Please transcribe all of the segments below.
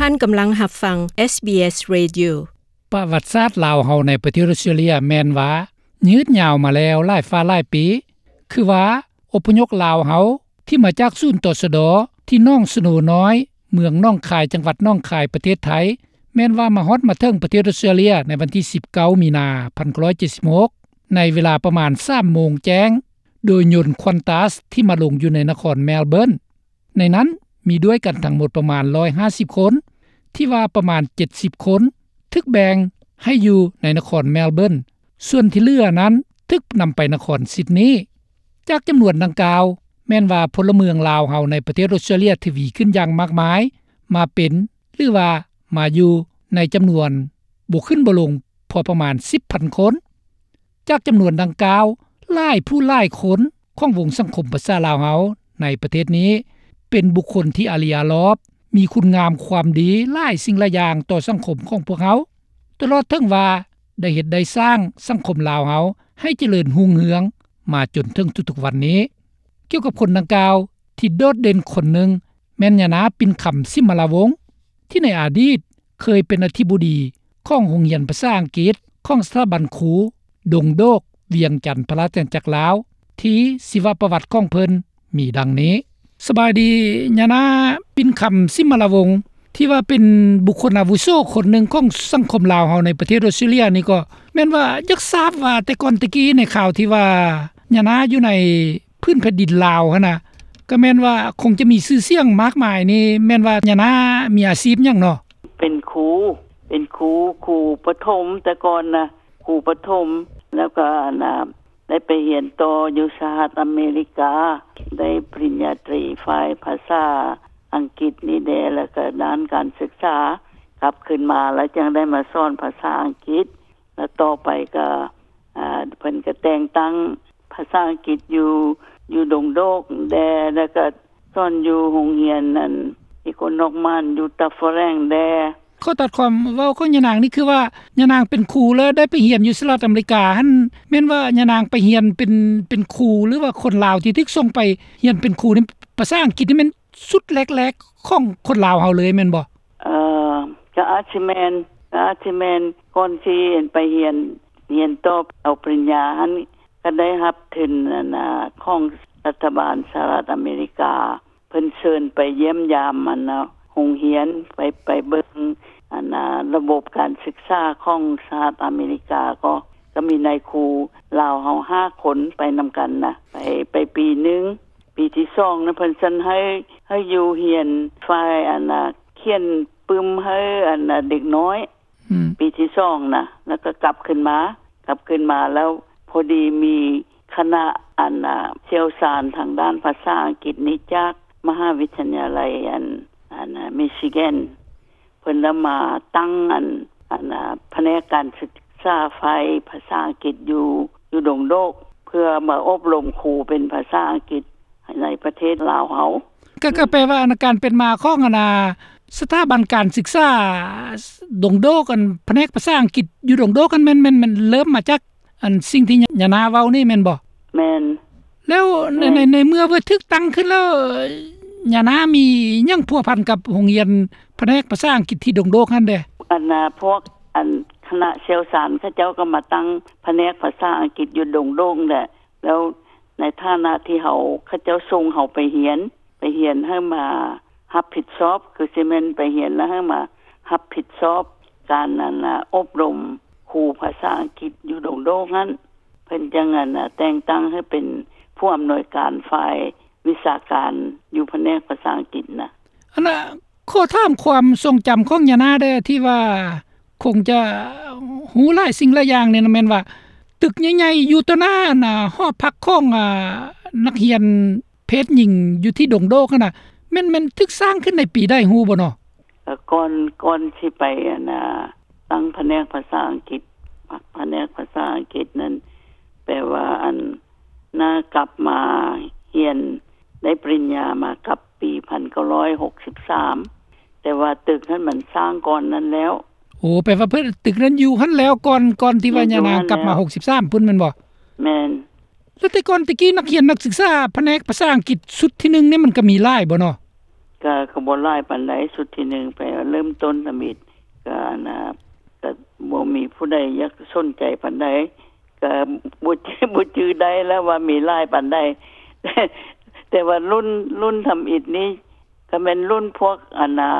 ທ່ານກຳລັງຮັບຟັງ ເອສບີເອສ Radio. ປະຫວັດສາດລາວເຮົາໃນປະເທດອົດສະຕຣາເລຍແມ່ນວ່າຍືດຍາວມາແລ້ວຫຼາຍຟ້າຫຼາຍປີ, ຄືວ່າອົບພະຍົບລາວເຮົາທີ່ມາຈາກສູນ ຕຊດ ທີ່ໜອງສະໂນນ້ອຍ ເມືອງໜອງຄາຍ ຈັງຫວັດໜອງຄາຍ ປະເທດໄທ ແມ່ນວ່າມາຮອດມາເຖິງປະເທດອົດສະຕຣາເລຍໃນວັນທີສິບເກົ້າ ມີນາ ໜຶ່ງພັນເກົ້າຮ້ອຍເຈັດສິບຫົກ ໃນເວລາປະມານສາມໂມງແຈ້ງ ໂດຍຍົນ Qantas ທີ່ມາລົງຢູ່ໃນນະຄອນ Melbourne. ໃນນັ້ນມີດ້ວຍກັນທັງໝົດປະມານຮ້ອຍຫ້າສິບຄົນ, ທີ່ວ່າປະມານເຈັດສິບຄົນຖືກແບ່ງໃຫ້ຢູ່ໃນນະຄອນ Melbourne, ສ່ວນທີ່ເຫຼືອນັ້ນຖືກນຳໄປນະຄອນ Sydney. ຈາກຈຳນວນດັ່ງກ່າວ ແມ່ນວ່າພົນລະເມືອງລາວເຮົາໃນປະເທດອົດສະຕຣາເລຍທະວີຂຶ້ນຢ່າງມາກມາຍ, ມາເປັນ ຫຼືວ່າມາຢູ່ໃນຈຳນວນບໍ່ຂຶ້ນບໍ່ລົງພໍປະມານສິບພັນຄົນ. ຈາກຈຳນວນດັ່ງກ່າວ ຫຼາຍຜູ້ຫຼາຍຄົນຂອງວົງສັງຄົມພາສາລາວເຮົາໃນປະເທດນີ້ ເປັນບຸກຄົນທີ່ອາລີອາລອບ, ມີຄຸນງາມຄວາມດີຫຼາຍສິ່ງຫຼາຍຢ່າງຕໍ່ສັງຄົມຂອງພວກເຮົາ, ຕະຫຼອດເຖິງວ່າໄດ້ເຮັດໄດ້ສ້າງສັງຄົມລາວເຮົາໃຫ້ຈະເລີນຮຸ່ງເຮືອງມາຈົນເຖິງທຸກໆວັນນີ້. ກ່ຽວກັບຄົນດັ່ງກ່າວ ທີ່ໂດດເດັ່ນຄົນໜຶ່ງ ແມ່ນຍານາ ປິ່ນຄຳ ສິມມະລາວົງ ທີ່ໃນອະດີດເຄີຍເປັນອະທິບໍດີຂອງໂຮງຮຽນພາສາອັງກິດຂອງສະຖາບັນຄູດົງໂດກ ວຽງຈັນ ພະລາຊະອານາຈັກລາວ ທີ່ຊີວະປະຫວັດຂອງເພິ່ນມີດັ່ງນີ້. ສະບາຍດີ ຍານາ ປິ່ນຄຳ ສິມມະລາວົງ ທີ່ວ່າເປັນບຸກຄົນອາວຸໂສຄົນໜຶ່ງຂອງສັງຄົມລາວເຮົາໃນປະເທດອົດສະຕຣາເລຍນີ້ ກໍແມ່ນວ່າຢາກຊາບວ່າແຕ່ກ່ອນແຕ່ກີ້ໃນຄາວທີ່ວ່າຍານາຢູ່ໃນ ພື້ນແຜ່ນດິນລາວຫັ້ນນະ ກໍແມ່ນວ່າຄົງຈະມີຊື່ສຽງມາກມາຍນີ້ ແມ່ນວ່າຍານາມີອາຊີບຫຍັງເນາະ? ເປັນຄູ ເປັນຄູ ຄູປະຖົມ ແຕ່ກ່ອນນະ ຄູປະຖົມ ແລ້ວກໍອັນນະ ໄດ້ໄປຮຽນຕໍ່ຢູ່ສະຫະລັດອາເມລິກາ ໄດ້ປະລິນຍາຕີຝ່າຍພາສາອັງກິດນີ້ແດ່ ແລ້ວກໍດ້ານການສຶກສາ ກັບຄືນມາແລ້ວຈັ່ງໄດ້ມາສອນພາສາອັງກິດ ແລ້ວຕໍ່ໄປກໍ ອ່າ ເພິ່ນກໍແຕ່ງຕັ້ງພາສາອັງກິດຢູ່ ຢູ່ດົງໂດກແດ່ ແລ້ວກໍສອນຢູ່ໂຮງຮຽນອັນ Economman ຢູ່ Dufferin ແດ່. ຂໍຕັດຄວາມເວົ້າຂອງຍານາງນີ້ ຄືວ່າຍານາງເປັນຄູ ແລ້ວໄດ້ໄປຮຽນຢູ່ສະຫະລັດອາເມລິກາຫັ້ນ ແມ່ນວ່າຍານາງໄປຮຽນເປັນ ເປັນຄູ ຫຼືວ່າຄົນລາວທີ່ຖືກສົ່ງໄປຮຽນເປັນຄູນີ້ ພາສາອັງກິດນີ້ແມ່ນ ຊຸດແລກໆຂອງຄົນລາວເຮົາເລີຍແມ່ນບໍ່? ເອີ ກໍອາດຊິແມ່ນ ກໍອາດຊິແມ່ນ ກ່ອນຊິໄປຮຽນ ຮຽນຕໍ່ເອົາປະລິນຍາຫັ້ນ ກໍໄດ້ຮັບທຶນອັນນະ ຂອງລັດຖະບານສະຫະລັດອາເມລິກາ ເພິ່ນເຊີນໄປຢ້ຽມຢາມອັນນະ ໂຮງຮຽນ ໄປ ໄປເບິ່ງອັນນະ ລະບົບການສຶກສາຂອງສະຫະລັດອາເມລິກາ ກໍ ກໍມີນາຍຄູລາວເຮົາຫ້າຄົນໄປນຳກັນນະ ໄປ ໄປປີໜຶ່ງ. ປີທີສອງນະ ເພິ່ນຊັ້ນໃຫ້ ໃຫ້ຢູ່ຮຽນຝ່າຍອັນນະ ຂຽນປຶ້ມໃຫ້ອັນນະ ເດັກນ້ອຍ ອືມ ປີທີສອງນະ ແລ້ວກໍກັບຄືນມາ ກັບຄືນມາແລ້ວ ພໍດີມີຄະນະອັນນະ ຊ່ຽວຊານທາງດ້ານພາສາອັງກິດນີ້ ຈາກມະຫາວິທະຍາໄລອັນ ອັນນະ Michigan ເພິ່ນລະມາຕັ້ງອັນ ອັນນະ ພະແນກການສຶກສາຝ່າຍພາສາອັງກິດຢູ່ ຢູ່ດົງໂດກ ເພື່ອມາອົບຮົມຄູເປັນພາສາອັງກິດໃນປະເທດລາວເຮົາ. ກໍ ກໍແປວ່າອັນນະ ການເປັນມາຂອງອັນນະ ສະຖາບັນການສຶກສາດົງໂດກ ອັນພະແນກພາສາອັງກິດຢູ່ດົງໂດກຫັ້ນ ແມ່ນ ແມ່ນ ແມ່ນເລີ່ມມາຈາກ ອັນສິ່ງທີ່ຍານາເວົ້ານີ້ແມ່ນບໍ່? ແມ່ນ. ແລ້ວໃນ ແມ່ນ ໃນ ໃນເມື່ອວ່າຖືກຕັ້ງຂຶ້ນແລ້ວ ຍານາມີຫຍັງພົວພັນກັບໂຮງຮຽນພະແນກພາສາອັງກິດທີ່ດົງໂດກຫັ້ນແດ່? ອັນນະ ພວກອັນຄະນະຊ່ຽວຊານເຂົາເຈົ້າກໍມາຕັ້ງພະແນກພາສາອັງກິດຢູ່ດົງໂດກແຫຼະ ແລ້ວໃນຖານະທີ່ເຮົາ ເຂົາເຈົ້າສົ່ງເຮົາໄປຮຽນ ໄປຮຽນໃຫ້ມາຮັບຜິດຊອບ ຄືຊິແມ່ນໄປຮຽນແລ້ວໃຫ້ມາຮັບຜິດຊອບການ ອັນນະ ອົບຮົມຄູພາສາອັງກິດຢູ່ດົງໂດກຫັ້ນ ເພິ່ນຈັ່ງ ອັນນະ ແຕ່ງຕັ້ງໃຫ້ເປັນຜູ້ອຳນວຍການຝ່າຍວິຊາການຢູ່ພະແນກພາສາອັງກິດນະ. ອັນນະ ຂໍຖາມຄວາມຊົງຈຳຂອງຍານາແດ່ ທີ່ວ່າຄົງຈະຮູ້ຫຼາຍສິ່ງຫຼາຍຢ່າງນີ້ນະ ແມ່ນວ່າຕຶກໃຫຍ່ໆຢູ່ຕໍ່ໜ້າ ອັນນະ ຫໍພັກຂອງ ອາ ນັກຮຽນ ເພດຍິງຢູ່ທີ່ດົງໂດກຫັ້ນນະ ແມ່ນ ແມ່ນຖືກສ້າງຂຶ້ນໃນປີໃດຮູ້ບໍ່ເນາະ? ກໍກ່ອນ ກ່ອນຊິໄປ ອັນນະ ຕັ້ງພະແນກພາສາອັງກິດ ພະແນກພາສາອັງກິດນັ້ນ ແປວ່າ ອັນ ນາກັບມາຮຽນໄດ້ປະລິນຍາມາກັບປີພັນເກົ້າຮ້ອຍຫົກສິບສາມ ແຕ່ວ່າຕຶກຫັ້ນມັນສ້າງກ່ອນນັ້ນແລ້ວ. ໂອ້ ແປວ່າເພິ່ນ ຕຶກນັ້ນຢູ່ຫັ້ນແລ້ວກ່ອນ ກ່ອນທີ່ວ່າຍານາງກັບມາຫົກສິບສາມພຸ້ນແມ່ນບໍ່? ແມ່ນ. ແລ້ວແຕ່ກ່ອນແຕ່ກີ້ ນັກຮຽນນັກສຶກສາພະແນກພາສາອັງກິດຊຸດທີໜຶ່ງນີ້ ມັນກໍມີຫຼາຍບໍ່ເນາະ? ກະ ກະບໍ່ຫຼາຍປານໃດ. ຊຸດທີໜຶ່ງໄປເລີ່ມຕົ້ນທຳອິດ ກະ ອັນນ່າ ກະບໍ່ມີຜູ້ໃດຢາກສົນໃຈປານໃດ ກະບໍ່ ບໍ່ຈື່ໄດ້ແລ້ວວ່າມີຫຼາຍປານໃດ. ແຕ່ວ່າລຸ້ນ ລຸ້ນທຳອິດນີ້ ກະແມ່ນລຸ້ນພວກ ອັນນ່າ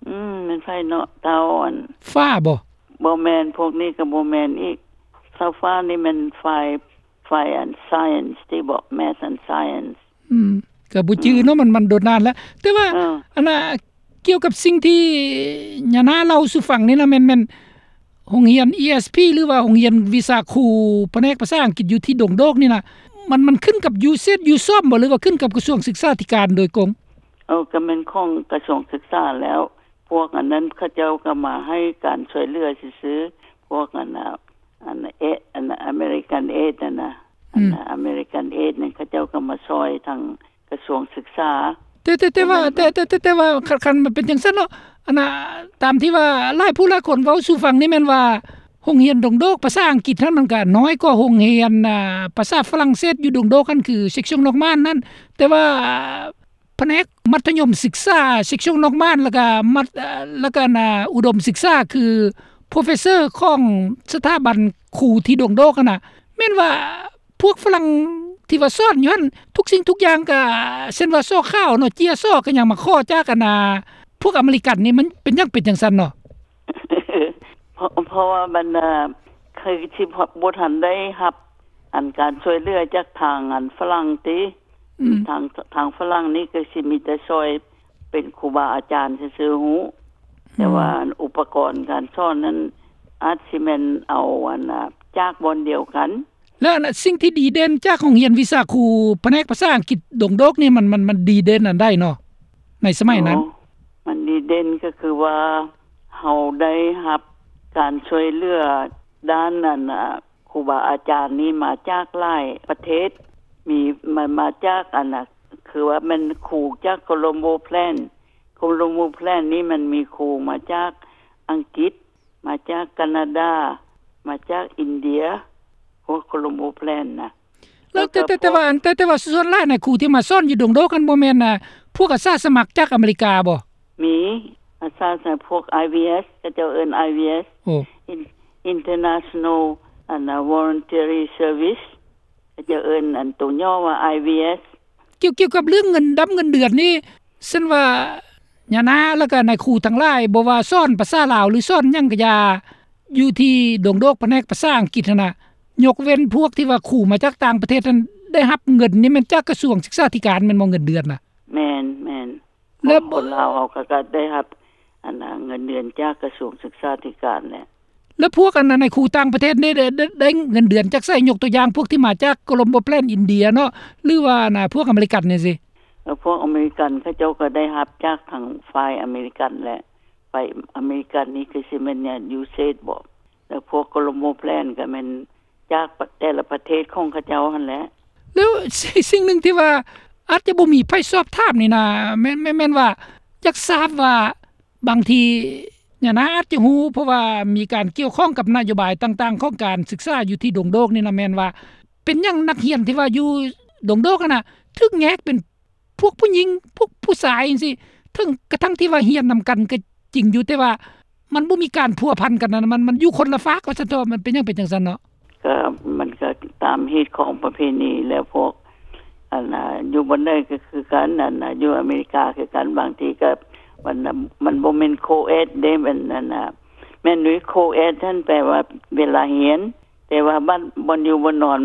ອືມ ແມ່ນໃຜເນາະ ເຕົ້າ ອັນ ຟ້າບໍ່? ບໍ່ແມ່ນ ພວກນີ້ກະບໍ່ແມ່ນອີກ. ເຕົ້າຟ້ານີ້ແມ່ນຝ່າຍ ຝ່າຍອັນ science ຕິເບາະ math and science. ອືມ ກະບໍ່ຈື່ເນາະ ອືມ ມັນ ມັນດົນນານແລ້ວ. ແຕ່ວ່າ ເອີ ອັນນ່າ ກ່ຽວກັບສິ່ງທີ່ຍານາເລົ່າສູ່ຟັງນີ້ນະ ແມ່ນ ແມ່ນໂຮງຮຽນ ESP ຫຼືວ່າໂຮງຮຽນວິຊາຄູພະແນກພາສາອັງກິດຢູ່ທີ່ດົງໂດກນີ້ນະ ມັນ ມັນຂຶ້ນກັບ USAID USOM ບໍ່ ຫຼືວ່າຂຶ້ນກັບກະຊວງສຶກສາທິການໂດຍກົງ? ເອີ ກະແມ່ນຂອງກະຊວງສຶກສາແລ້ວ. ພວກອັນນັ້ນເຂົາເຈົ້າກະມາໃຫ້ການຊ່ວຍເຫຼືອຊື່ໆ. ພວກອັນນ່າ ອັນເອ ອັນ American Aid ຫັ້ນນະ ອືມ ອັນ American Aid ນັ້ນ ເຂົາເຈົ້າກະມາຊ່ອຍທາງກະຊວງສຶກສາ. ແຕ່ ແຕ່ ແຕ່ວ່າ ແຕ່ ແຕ່ ແຕ່ ແຕ່ວ່າ ຄັນ ຄັນມັນເປັນຈັ່ງຊັ້ນເນາະ ອັນນ່າ ຕາມທີ່ວ່າຫຼາຍຜູ້ຫຼາຍຄົນເວົ້າສູ່ຟັງນີ້ແມ່ນວ່າ ໂຮງຮຽນດົງໂດກພາສາອັງກິດຫັ້ນ ມັນກະນ້ອຍກວ່າໂຮງຮຽນ ອ່າ ພາສາຝຣັ່ງເສດຢູ່ດົງໂດກຫັ້ນ ຄື section Norman ນັ້ນ. ແຕ່ວ່າ ພະແນກມັດທະຍົມສຶກສາ section Norman ແລ້ວກະມັດ ເອີ ແລ້ວກະ ອັນນ່າ ອຸດົມສຶກສາ ຄື professor ຂອງສະຖາບັນຄູທີ່ດົງໂດກຫັ້ນນະ ແມ່ນວ່າພວກຝຣັ່ງທີ່ວ່າສອນຢູ່ຫັ້ນ ທຸກສິ່ງທຸກຢ່າງກະ ເຊັ່ນວ່າສໍຂາວເນາະ ເຈ້ຍສໍກະຍັງມາຂໍຈາກ ອັນນ່າ ພວກອາເມລິກັນນີ້ ມັນເປັນຫຍັງເປັນຈັ່ງຊັ້ນເນາະ? ເພາະ ເພາະວ່າບັນດາ ຄືຊິບໍ່ທັນໄດ້ຮັບອັນການຊ່ວຍເຫຼືອຈາກທາງອັນຝຣັ່ງຕິ ອືມ ທາງ ທາງຝຣັ່ງນີ້ກະຊິມີແຕ່ຊ່ອຍເປັນຄູບາອາຈານຊື່ໆ ຮູ້ ອືມ ແຕ່ວ່າອຸປະກອນການສອນນັ້ນ ອາດຊິແມ່ນເອົາອັນ ອາ ຈາກບ່ອນດຽວກັນ. ແລ້ວອັນ ສິ່ງທີ່ດີເດັ່ນຈາກໂຮງຮຽນວິຊາຄູພະແນກພາສາອັງກິດດົງໂດກນີ້ ມັນ ມັນ ມັນດີເດັ່ນອັນໃດເນາະ ໃນສະໄໝນັ້ນ? ໂອ້ ມັນດີເດັ່ນກະຄືວ່າ ເຮົາໄດ້ຮັບການຊ່ວຍເຫຼືອດ້ານອັນ ອາ ຄູບາອາຈານນີ້ມາຈາກຫຼາຍປະເທດ ມີ ມາ ມາຈາກອັນນ່າ ຄືວ່າແມ່ນຄູຈາກ Colombo Plan. Colombo Plan ນີ້ມັນມີຄູມາຈາກອັງກິດ ມາຈາກການາດາ ມາຈາກອິນເດຍ ພວກ Colombo Plan ນະ. ແລ້ວ ແຕ່ ແຕ່ ແຕ່ວ່າ ແຕ່ ແຕ່ວ່າສ່ວນຫຼາຍນະ ຄູທີ່ມາສອນຢູ່ດົງໂດກຫັ້ນ ບໍ່ແມ່ນ ອາ ພວກອາສາສະໝັກຈາກອາເມລິກາບໍ່? ມີ ອາສາສະໝັກພວກ IVS ເຂົາເຈົ້າເອີ້ນ IVS ໂອ້ In- International ອັນນ່າ Voluntary Service ເຂົາເຈົ້າເອີ້ນອັນໂຕຫຍໍ້ວ່າ IVS. ກ່ຽວ ກ່ຽວກັບເລື່ອງເງິນດຳເງິນເດືອນນີ້ ຊັ້ນວ່າຍານາ ແລ້ວກະນາຍຄູທັງຫຼາຍ ບໍ່ວ່າສອນພາສາລາວ ຫຼືສອນຫຍັງກະຢ່າ ຢູ່ທີ່ດົງໂດກພະແນກພາສາອັງກິດຫັ້ນນະ ຍົກເວັ້ນພວກທີ່ວ່າຄູມາຈາກຕ່າງປະເທດຫັ້ນ ໄດ້ຮັບເງິນນີ້ແມ່ນຈາກກະຊວງສຶກສາທິການແມ່ນບໍ່ ເງິນເດືອນນະ? ແມ່ນ ແມ່ນ. ແລ້ວຄົນລາວເຮົາກະ ກະໄດ້ຮັບອັນນາ ເງິນເດືອນຈາກກະຊວງສຶກສາທິການແຫຼະ. ແລ້ວພວກອັນນາ ນາຍຄູຕ່າງປະເທດນີ້ ໄດ້ ໄດ້ ໄດ້ເງິນເດືອນຈາກໃສ? ຍົກຕົວຢ່າງພວກທີ່ມາຈາກ Colombo Plan ອິນເດຍເນາະ ຫຼືວ່າອັນນາ ພວກອາເມລິກັນຈັ່ງຊີ້. ເອີ ພວກອາເມລິກັນເຂົາເຈົ້າກະໄດ້ຮັບຈາກທາງຝ່າຍອາເມລິກັນແຫຼະ. ຝ່າຍອາເມລິກັນນີ້ຄືຊິແມ່ນ USAID ບໍ ແລ້ວພວກ Colombo Plan ກະແມ່ນຈາກແຕ່ລະປະເທດຂອງເຂົາເຈົ້າຫັ້ນແຫຼະ. ແລ້ວ ສິ່ງ ສິ່ງໜຶ່ງທີ່ວ່າອາດຈະບໍ່ມີໃຜສອບຖາມນີ້ນະ ແມ່ນ ແມ່ນ ແມ່ນວ່າຢາກຊາບວ່າ ບາງທີຍານາອາດຈະຮູ້ ເພາະວ່າມີການກ່ຽວຂ້ອງກັບນະໂຍບາຍຕ່າງໆຂອງການສຶກສາຢູ່ທີ່ດົງໂດກນີ້ນະ ແມ່ນວ່າເປັນຫຍັງນັກຮຽນທີ່ວ່າຢູ່ດົງໂດກຫັ້ນນະ ຖືກແຍກເປັນພວກຜູ້ຍິງ ພວກຜູ້ຊາຍຈັ່ງຊີ້ ເຖິງກະທັ່ງທີ່ວ່າຮຽນນຳກັນກະຈິງຢູ່ ແຕ່ວ່າມັນບໍ່ມີການພົວພັນກັນນະ ມັນ ມັນຢູ່ຄົນລະຟາກວ່າຊັ້ນເຖາະ. ມັນເປັນຫຍັງເປັນຈັ່ງຊັ້ນເນາະ? ກະ ມັນກະຕາມຮີດຄອງປະເພນີແຫຼະ ພວກອັນນາ ຢູ່ບ່ອນໃດກະຄືກັນ ອັນນາ ຢູ່ອາເມລິກາຄືກັນ ບາງທີກະ ມັນ ມັນບໍ່ແມ່ນ co-ed ເດ້ ມັນອັນນາ ແມ່ນຢູ່ co-ed ຫັ້ນແປວ່າເວລາຮຽນ ແຕ່ວ່າບ້ານ ບ່ອນຢູ່ບ່ອນນອນ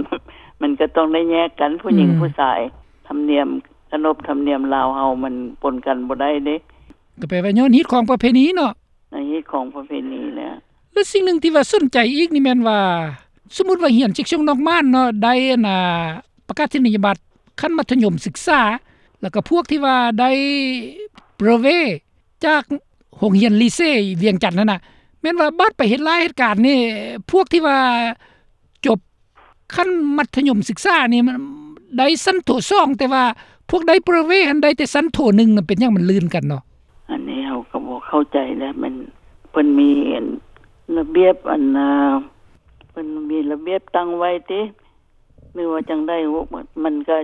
ມັນກະຕ້ອງໄດ້ແຍກກັນ ຜູ້ຍິງ ອືມ ຜູ້ຊາຍ ທຳນຽມ ຂະໜົບທຳນຽມລາວເຮົາມັນປົນກັນບໍ່ໄດ້ເດ້. ກະແປວ່າຍ້ອນຮີດຄອງປະເພນີເນາະ. ໃນຮີດຄອງປະເພນີແຫຼະ. ແລະ ສິ່ງໜຶ່ງທີ່ວ່າສົນໃຈອີກນີ້ແມ່ນວ່າ ສົມມຸດວ່າຮຽນເຊັກຊົງນອກມານເນາະ ໄດ້ອັນນາ ປະກາສນີຍະບັດຂັ້ນມັດທະຍົມສຶກສາ ແລ້ວກະພວກທີ່ວ່າໄດ້ brevet ຈາກໂຮງຮຽນລີເຊວຽງຈັນຫັ້ນນະ ແມ່ນວ່າບາດໄປເຮັດລາຍເຮັດການນີ້ ພວກທີ່ວ່າຈົບ ຂັ້ນມັດທະຍົມສຶກສານີ້ມັນໄດ້ຊັ້ນໂທສອງ ແຕ່ວ່າພວກໄດ້ brevet ຫັ້ນໄດ້ແຕ່ຊັ້ນໂທໜຶ່ງນະ ເປັນຫຍັງມັນລື່ນກັນເນາະ? ອັນນີ້ເຮົາກະບໍ່ເຂົ້າໃຈແຫຼະ ແມ່ນເພິ່ນມີອັນລະບຽບອັນນາ ເພິ່ນມີລະບຽບຕັ້ງໄວ້ຕິ ຫຼືວ່າຈັ່ງໃດ? ມັນກະ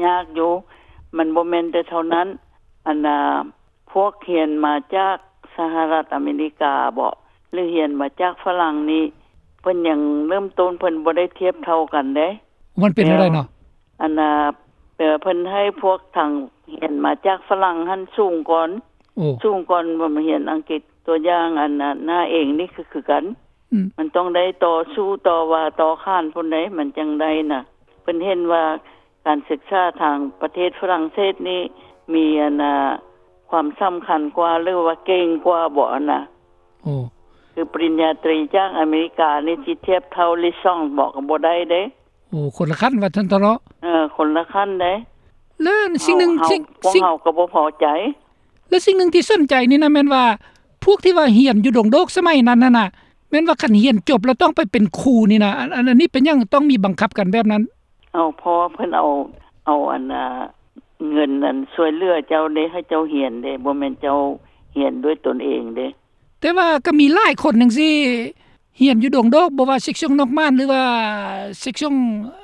ຍາກຢູ່ ມັນບໍ່ແມ່ນແຕ່ເທົ່ານັ້ນ. ອັນນ່າ ພວກຮຽນມາຈາກສະຫະລັດອາເມລິກາບໍ ຫຼືຮຽນມາຈາກຝຣັ່ງນີ້ ເພິ່ນຍັງເລີ່ມຕົ້ນ ເພິ່ນບໍ່ໄດ້ທຽບເທົ່າກັນເດ້. ມັນເປັນແນວໃດເນາະ? ອັນນ່າ ແປວ່າເພິ່ນໃຫ້ພວກທາງຮຽນມາຈາກຝຣັ່ງຫັ້ນສູງກ່ອນ. ໂອ້ ສູງກ່ອນ ບໍ່ມາຮຽນອັງກິດ. ຕົວຢ່າງ ອັນນ່າ ນ້າເອງນີ້ຄື ຄືກັນ. ອືມ ມັນຕ້ອງໄດ້ຕໍ່ສູ້ຕໍ່ວ່າຕໍ່ຂານພຸ້ນໃດ໋ ມັນຈັ່ງໄດ້ນະ. ເພິ່ນເຫັນວ່າການສຶກສາທາງປະເທດຝຣັ່ງເສດນີ້ ມີ ອັນນ່າ ຄວາມສຳຄັນກວ່າ ຫຼືວ່າເກັ່ງກວ່າບໍ ອັນນ່າ. ໂອ້ ຄືປະລິນຍາຕຣີຈາກອາເມລິການີ້ ຊິທຽບເທົ່າລິຊອງບໍ ກໍບໍ່ໄດ້ເດ້. ໂອ້ ຄົນລະຂັ້ນວ່າຊັ້ນເຖາະເນາະ. ເອີ ຄົນລະຂັ້ນເດ້. ແລ້ວສິ່ງໜຶ່ງ ເຮົາ ສິ່ງ ພວກເຮົາກໍບໍ່ພໍໃຈ. ແລ້ວສິ່ງໜຶ່ງທີ່ສົນໃຈນີ້ນະ ແມ່ນວ່າພວກທີ່ວ່າຮຽນຢູ່ດົງໂດກສະໄໝນັ້ນຫັ້ນນະ ແມ່ນວ່າຄັນຮຽນຈົບແລ້ວຕ້ອງໄປເປັນຄູນີ້ນະ ອັນ ອັນ ອັນນີ້ເປັນຫຍັງຕ້ອງມີບັງຄັບກັນແບບນັ້ນ? ເອົາ ເພາະວ່າເພິ່ນເອົາ ເອົາ ອັນນ່າ ເງິນອັນຊ່ວຍເຫຼືອເຈົ້າເດ້ ໃຫ້ເຈົ້າຮຽນເດ້ ບໍ່ແມ່ນເຈົ້າຮຽນດ້ວຍຕົນເອງເດ້. ແຕ່ວ່າກໍມີຫຼາຍຄົນຈັ່ງຊີ້ ຮຽນຢູ່ດົງໂດກ ບໍ່ວ່າເຊັກຊອງນອກມ່ານ ຫຼືວ່າເຊັກຊອງ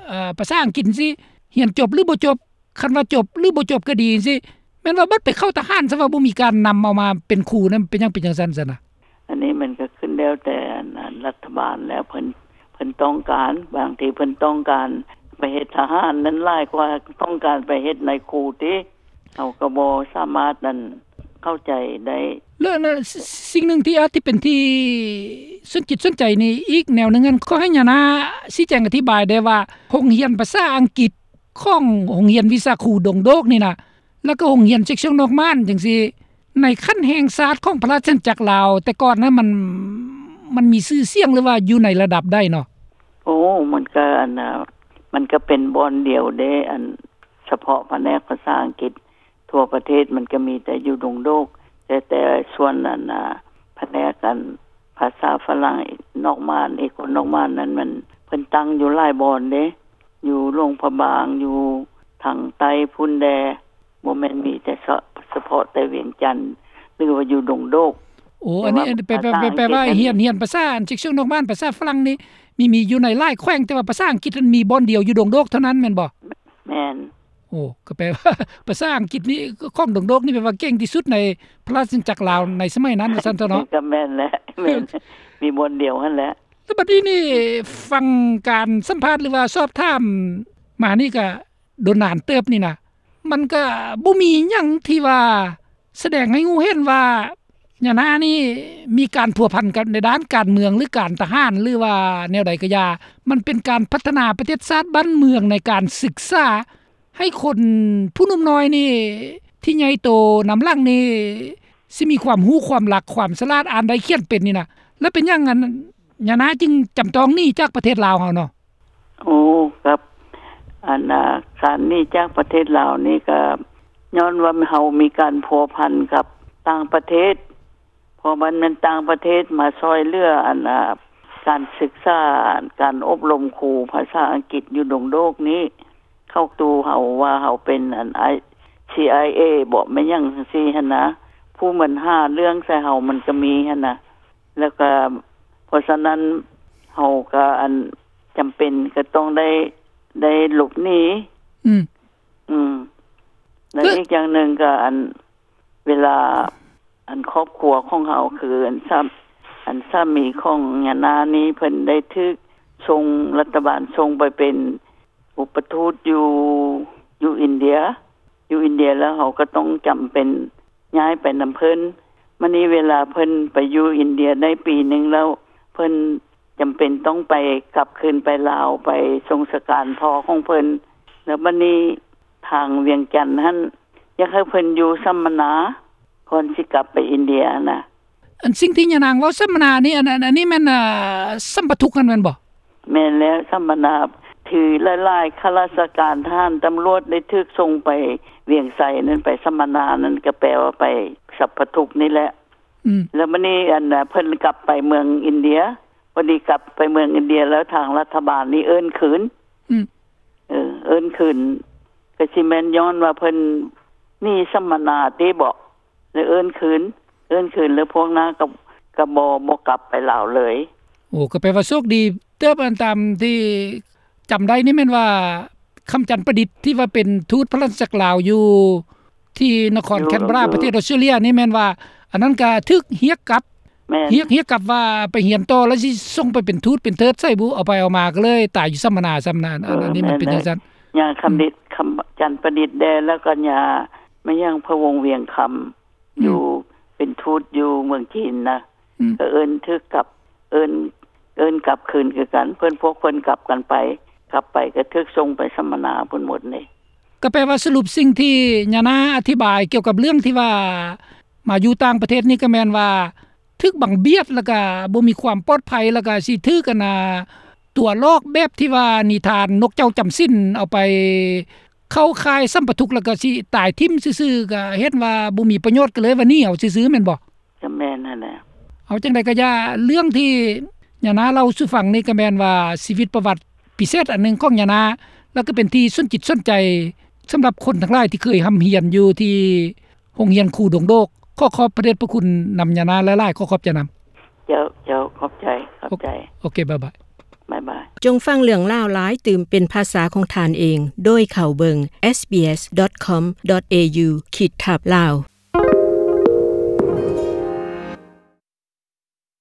ເອີ ພາສາອັງກິດຊີ້ ຮຽນຈົບ ຫຼືບໍ່ຈົບ ຄັນວ່າຈົບ ຫຼືບໍ່ຈົບກໍດີຈັ່ງຊີ້ ແມ່ນວ່າບັດໄປເຂົ້າທະຫານ ຊະວ່າບໍ່ມີການນຳເອົາມາເປັນຄູນັ້ນ ເປັນຫຍັງເປັນຈັ່ງຊັ້ນຊັ້ນນະ? ອັນນີ້ມັນກໍຂຶ້ນແລ້ວແຕ່ ອັນ ລັດຖະບານແລ້ວ ເພິ່ນ ເພິ່ນຕ້ອງການ ບາງທີເພິ່ນຕ້ອງການໄປເຮັດທະຫານນັ້ນຫຼາຍກວ່າຕ້ອງການໄປເຮັດນາຍຄູຕິ. ເຮົາກໍບໍ່ສາມາດ ອັນ ເຂົ້າໃຈໄດ້. ແລ້ວ ແລ້ວ ສິ່ງໜຶ່ງທີ່ອາດຈະເປັນທີ່ສົນຈິດສົນໃຈນີ້ອີກແນວໜຶ່ງ ອັນ ຂໍໃຫ້ຍານາຊີ້ແຈງອະທິບາຍໄດ້ວ່າ ໂຮງຮຽນພາສາອັງກິດຂອງໂຮງຮຽນວິຊາຄູດົງໂດກນີ້ນະ ແລ້ວກໍໂຮງຮຽນເຊັກຊອງນອກມ່ານຈັ່ງຊີ້ ໃນຂັ້ນແຫ່ງຊາດຂອງພະລາຊະອານາຈັກລາວ ແຕ່ກ່ອນນະ ມັນ ມັນມີຊື່ສຽງ ຫຼືວ່າຢູ່ໃນລະດັບໃດເນາະ? ໂອ້ ມັນກໍ ອັນ ມັນກໍເປັນບ່ອນດຽວເດ້ ອັນ ສະເພາະພະແນກພາສາອັງກິດ ທົ່ວປະເທດມັນກໍມີແຕ່ຢູ່ດົງໂດກ ແຕ່ ແຕ່ສ່ວນອັນ ອາ ພະແນກອັນພາສາຝຣັ່ງນອກມ່ານ ເອກອນນອກມ່ານນັ້ນ ມັນ ເພິ່ນຕັ້ງຢູ່ຫຼາຍບ່ອນເດ້ ຢູ່ຫຼວງພະບາງ ຢູ່ທາງໃຕ້ພຸ້ນແດ່ ບໍ່ແມ່ນມີແຕ່ສະ ສະເພາະແຕ່ວຽງຈັນ ຫຼືວ່າຢູ່ດົງໂດກ. ໂອ້ ອັນນີ້ ແປ ແປ ແປວ່າຮຽນ ຮຽນພາສາອັນ ເຊັກຊອງນອກບ້ານ ພາສາຝຣັ່ງນີ້ ມີ ມີຢູ່ໃນຫຼາຍແຂວງ ແຕ່ວ່າພາສາອັງກິດນັ້ນມີບ່ອນດຽວຢູ່ດົງໂດກເທົ່ານັ້ນແມ່ນບໍ່? ແມ່ນ. ໂອ້ ກໍແປວ່າພາສາອັງກິດນີ້ ຂອງດົງໂດກນີ້ແປວ່າເກັ່ງທີ່ສຸດໃນພະລາຊະອານາຈັກລາວໃນສະໄໝນັ້ນ ວ່າຊັ້ນເຖາະເນາະ. ກໍແມ່ນແຫຼະ ແມ່ນ ມີບ່ອນດຽວຫັ້ນແຫຼະ. ແລ້ວບັດນີ້ນີ້ ຟັງການສຳພາດ ຫຼືວ່າສອບຖາມມານີ້ ກະດົນນານເຕີບນີ້ນະ ມັນກະບໍ່ມີຫຍັງທີ່ວ່າສະແດງໃຫ້ຮູ້ເຫັນວ່າ ຍານານີ້ມີການພົວພັນກັບໃນດ້ານການເມືອງ ຫຼື ການທະຫານ ຫຼືວ່າແນວໃດກໍຢ່າ ມັນເປັນການພັດທະນາປະເທດຊາດບ້ານເມືອງ ໃນການສຶກສາໃຫ້ຄົນຜູ້ໜຸ່ມນ້ອຍນີ້ ທີ່ໃຫຍ່ໂຕນຳຫຼັງນີ້ ຊິມີຄວາມຮູ້ຄວາມລັກ ຄວາມສະຫຼາດ ອ່ານໄດ້ຂຽນເປັນນີ້ນະ. ແລ້ວເປັນຫຍັງ ອັນ ຍານາຈຶ່ງຈຳຕ້ອງໜີຈາກປະເທດລາວເຮົາເນາະ? ໂອ້ ກັບ ອັນ ອາ ການໜີຈາກປະເທດລາວນີ້ ກໍຍ້ອນວ່າເຮົາມີການພົວພັນກັບຕ່າງປະເທດ ເພາະມັນແມ່ນຕ່າງປະເທດມາຊ່ອຍເຫຼືອ ອັນ ອາ ການສຶກສາ ການອົບຮົມຄູພາສາອັງກິດຢູ່ດົງໂດກນີ້ ເຂົາຕູເຮົາວ່າເຮົາເປັນ ອັນ ອາ ຊີໄອເອ ບໍ ແມ່ນຫຍັງຈັ່ງຊີ້ຫັ້ນນະ ຜູ້ມັນຫາເລື່ອງໃສ່ເຮົາມັນກໍມີຫັ້ນນະ. ແລ້ວກໍ ເພາະສະນັ້ນ ເຮົາກໍ ອັນ ຈຳເປັນກໍຕ້ອງໄດ້ ໄດ້ຫຼົບໜີ. ອືມ ອືມ ແລ້ວອີກຢ່າງໜຶ່ງກໍ ອັນ ເວລາ ອັນ ຄອບຄົວຂອງເຮົາ ຄື ອັນ ສາ ອັນ ສາມີຂອງຍານານີ້ ເພິ່ນໄດ້ຖືກສົ່ງ ລັດຖະບານສົ່ງໄປເປັນ ອຸປະທູດຢູ່ ຢູ່ອິນເດຍ ຢູ່ອິນເດຍ ແລ້ວເຮົາກໍຕ້ອງຈຳເປັນຍ້າຍໄປນຳເພິ່ນ. ມານີ້ເວລາເພິ່ນໄປຢູ່ອິນເດຍໄດ້ປີໜຶ່ງແລ້ວ ເພິ່ນຈຳເປັນຕ້ອງໄປ ກັບຄືນໄປລາວ ໄປສົ່ງສະການພໍ່ຂອງເພິ່ນ. ແລ້ວມານີ້ທາງວຽງຈັນຫັ້ນ ຢາກໃຫ້ເພິ່ນຢູ່ສຳມະນາ ກ່ອນຊິກັບໄປອິນເດຍນະ. ອັນສິ່ງທີ່ຍານາງເວົ້າສຳມະນານີ້ ອັນ ອັນ ອັນນີ້ແມ່ນ ເອີ ສຳປະທຸກຫັ້ນແມ່ນບໍ່? ແມ່ນແລ້ວ ສຳມະນາ ທີ່ຫຼາຍໆຂ້າລາຊະການ ທະຫານ ຕຳຫຼວດ ໄດ້ຖືກສົ່ງໄປວຽງໄຊນັ້ນ ໄປສຳມະນານັ້ນ ກໍແປວ່າໄປສຳປະທຸກນີ້ແຫຼະ. ອືມ ແລ້ວມານີ້ ອັນ ເພິ່ນກັບໄປເມືອງອິນເດຍ ພໍດີກັບໄປເມືອງອິນເດຍ ແລ້ວທາງລັດຖະບານນີ້ເອີ້ນຄືນ. ອືມ ເອີ ເອີ້ນຄືນ ກໍຊິແມ່ນຍ້ອນວ່າເພິ່ນໜີສຳມະນາຕິບໍ ແລ້ວເອີ້ນຄືນ ເອີ້ນຄືນ ແລ້ວພວກນ້າກໍ ກໍບໍ່ ບໍ່ກັບໄປລາວເລີຍ. ໂອ້ ກໍແປວ່າໂຊກດີເຕີບ. ອັນຕາມທີ່ຈຳໄດ້ນີ້ແມ່ນວ່າ ຄຳຈັນປະດິດ ທີ່ວ່າເປັນທູດພະລາຊະອານາຈັກລາວຢູ່ ທີ່ນະຄອນແຄນເບຣາ ຢູ່ ປະເທດອອສເຕຣເລັຽນີ້ ແມ່ນວ່າອັນນັ້ນກໍຖືກຮຽກກັບ ແມ່ນ ຮຽກ ຮຽກກັບວ່າໄປຮຽນຕໍ່ ແລ້ວຊິສົ່ງໄປເປັນທູດເປັນເທີດໃສບຸ ເອົາໄປເອົາມາກໍເລີຍຕາຍຢູ່ສຳມະນາ ສຳມະນາ ເອີ ອັນນີ້ມັນເປັນ ແມ່ນ ຈັ່ງຊັ້ນ ຍາຄຳດິດ ອືມ ຄຳຈັນປະດິດແດ່ ແລ້ວກໍຍາ ແມ່ນຫຍັງ ພະວົງວຽງຄຳ ອືມ ຢູ່ເປັນທູດຢູ່ເມືອງຈີນນະ ອືມ ກໍເອີ້ນຖືກກັບ ເອີ້ນ ເອີ້ນກັບຄືນຄືກັນ ເພິ່ນ ພວກເພິ່ນກັບກັນໄປ ກັບໄປກໍຖືກສົ່ງໄປສຳມະນາພຸ້ນໝົດເດ້. ກໍແປວ່າສະຫຼຸບສິ່ງທີ່ຍານາອະທິບາຍກ່ຽວກັບເລື່ອງທີ່ວ່າມາຢູ່ຕ່າງປະເທດນີ້ ກໍແມ່ນວ່າຖືກບັງບຽດ ແລ້ວກໍບໍ່ມີຄວາມປອດໄພ ແລ້ວກໍຊິຖືກ ອັນນ່າ ຕົວະຫຼອກແບບທີ່ວ່ານິທານນົກເຈົ້າຈຳສິນ ເອົາໄປເຂົ້າຄ້າຍສຳປະທຸກ ແລ້ວກໍຊິຕາຍຖິ້ມຊື່ໆ ກໍເຫັນວ່າບໍ່ມີປະໂຫຍດ ກໍເລີຍວ່າໜີເອົາຊື່ໆ ແມ່ນບໍ່? ກໍແມ່ນຫັ້ນແຫຼະ. ເອົາຈັ່ງໃດກໍຢ່າ ເລື່ອງທີ່ຍານາເລົ່າສູ່ຟັງນີ້ ກໍແມ່ນວ່າຊີວິດປະຫວັດພິເສດອັນໜຶ່ງຂອງຍານາ ແລ້ວກໍເປັນທີ່ສົນຈິດສົນໃຈສຳລັບຄົນທັງຫຼາຍທີ່ເຄີຍຮ່ຳຮຽນຢູ່ທີ່ໂຮງຮຽນຄູດົງໂດກ. ຂໍຂອບພະເດດພະຄຸນນຳຍານາຫຼາຍໆ. ຂໍຂອບໃຈນຳ. ເຈົ້າ ເຈົ້າ ຂອບໃຈ ຂອບໃຈ. ໂອເຄ ບາຍບາຍ. ບາຍບາຍ. ຈົ່ງຟັງເລື່ອງລາວຫຼາຍຕື່ມເປັນພາສາຂອງທ່ານເອງ ໂດຍເຂົ້າເບິ່ງ SBS.com.au ຂີດທັບ Lao.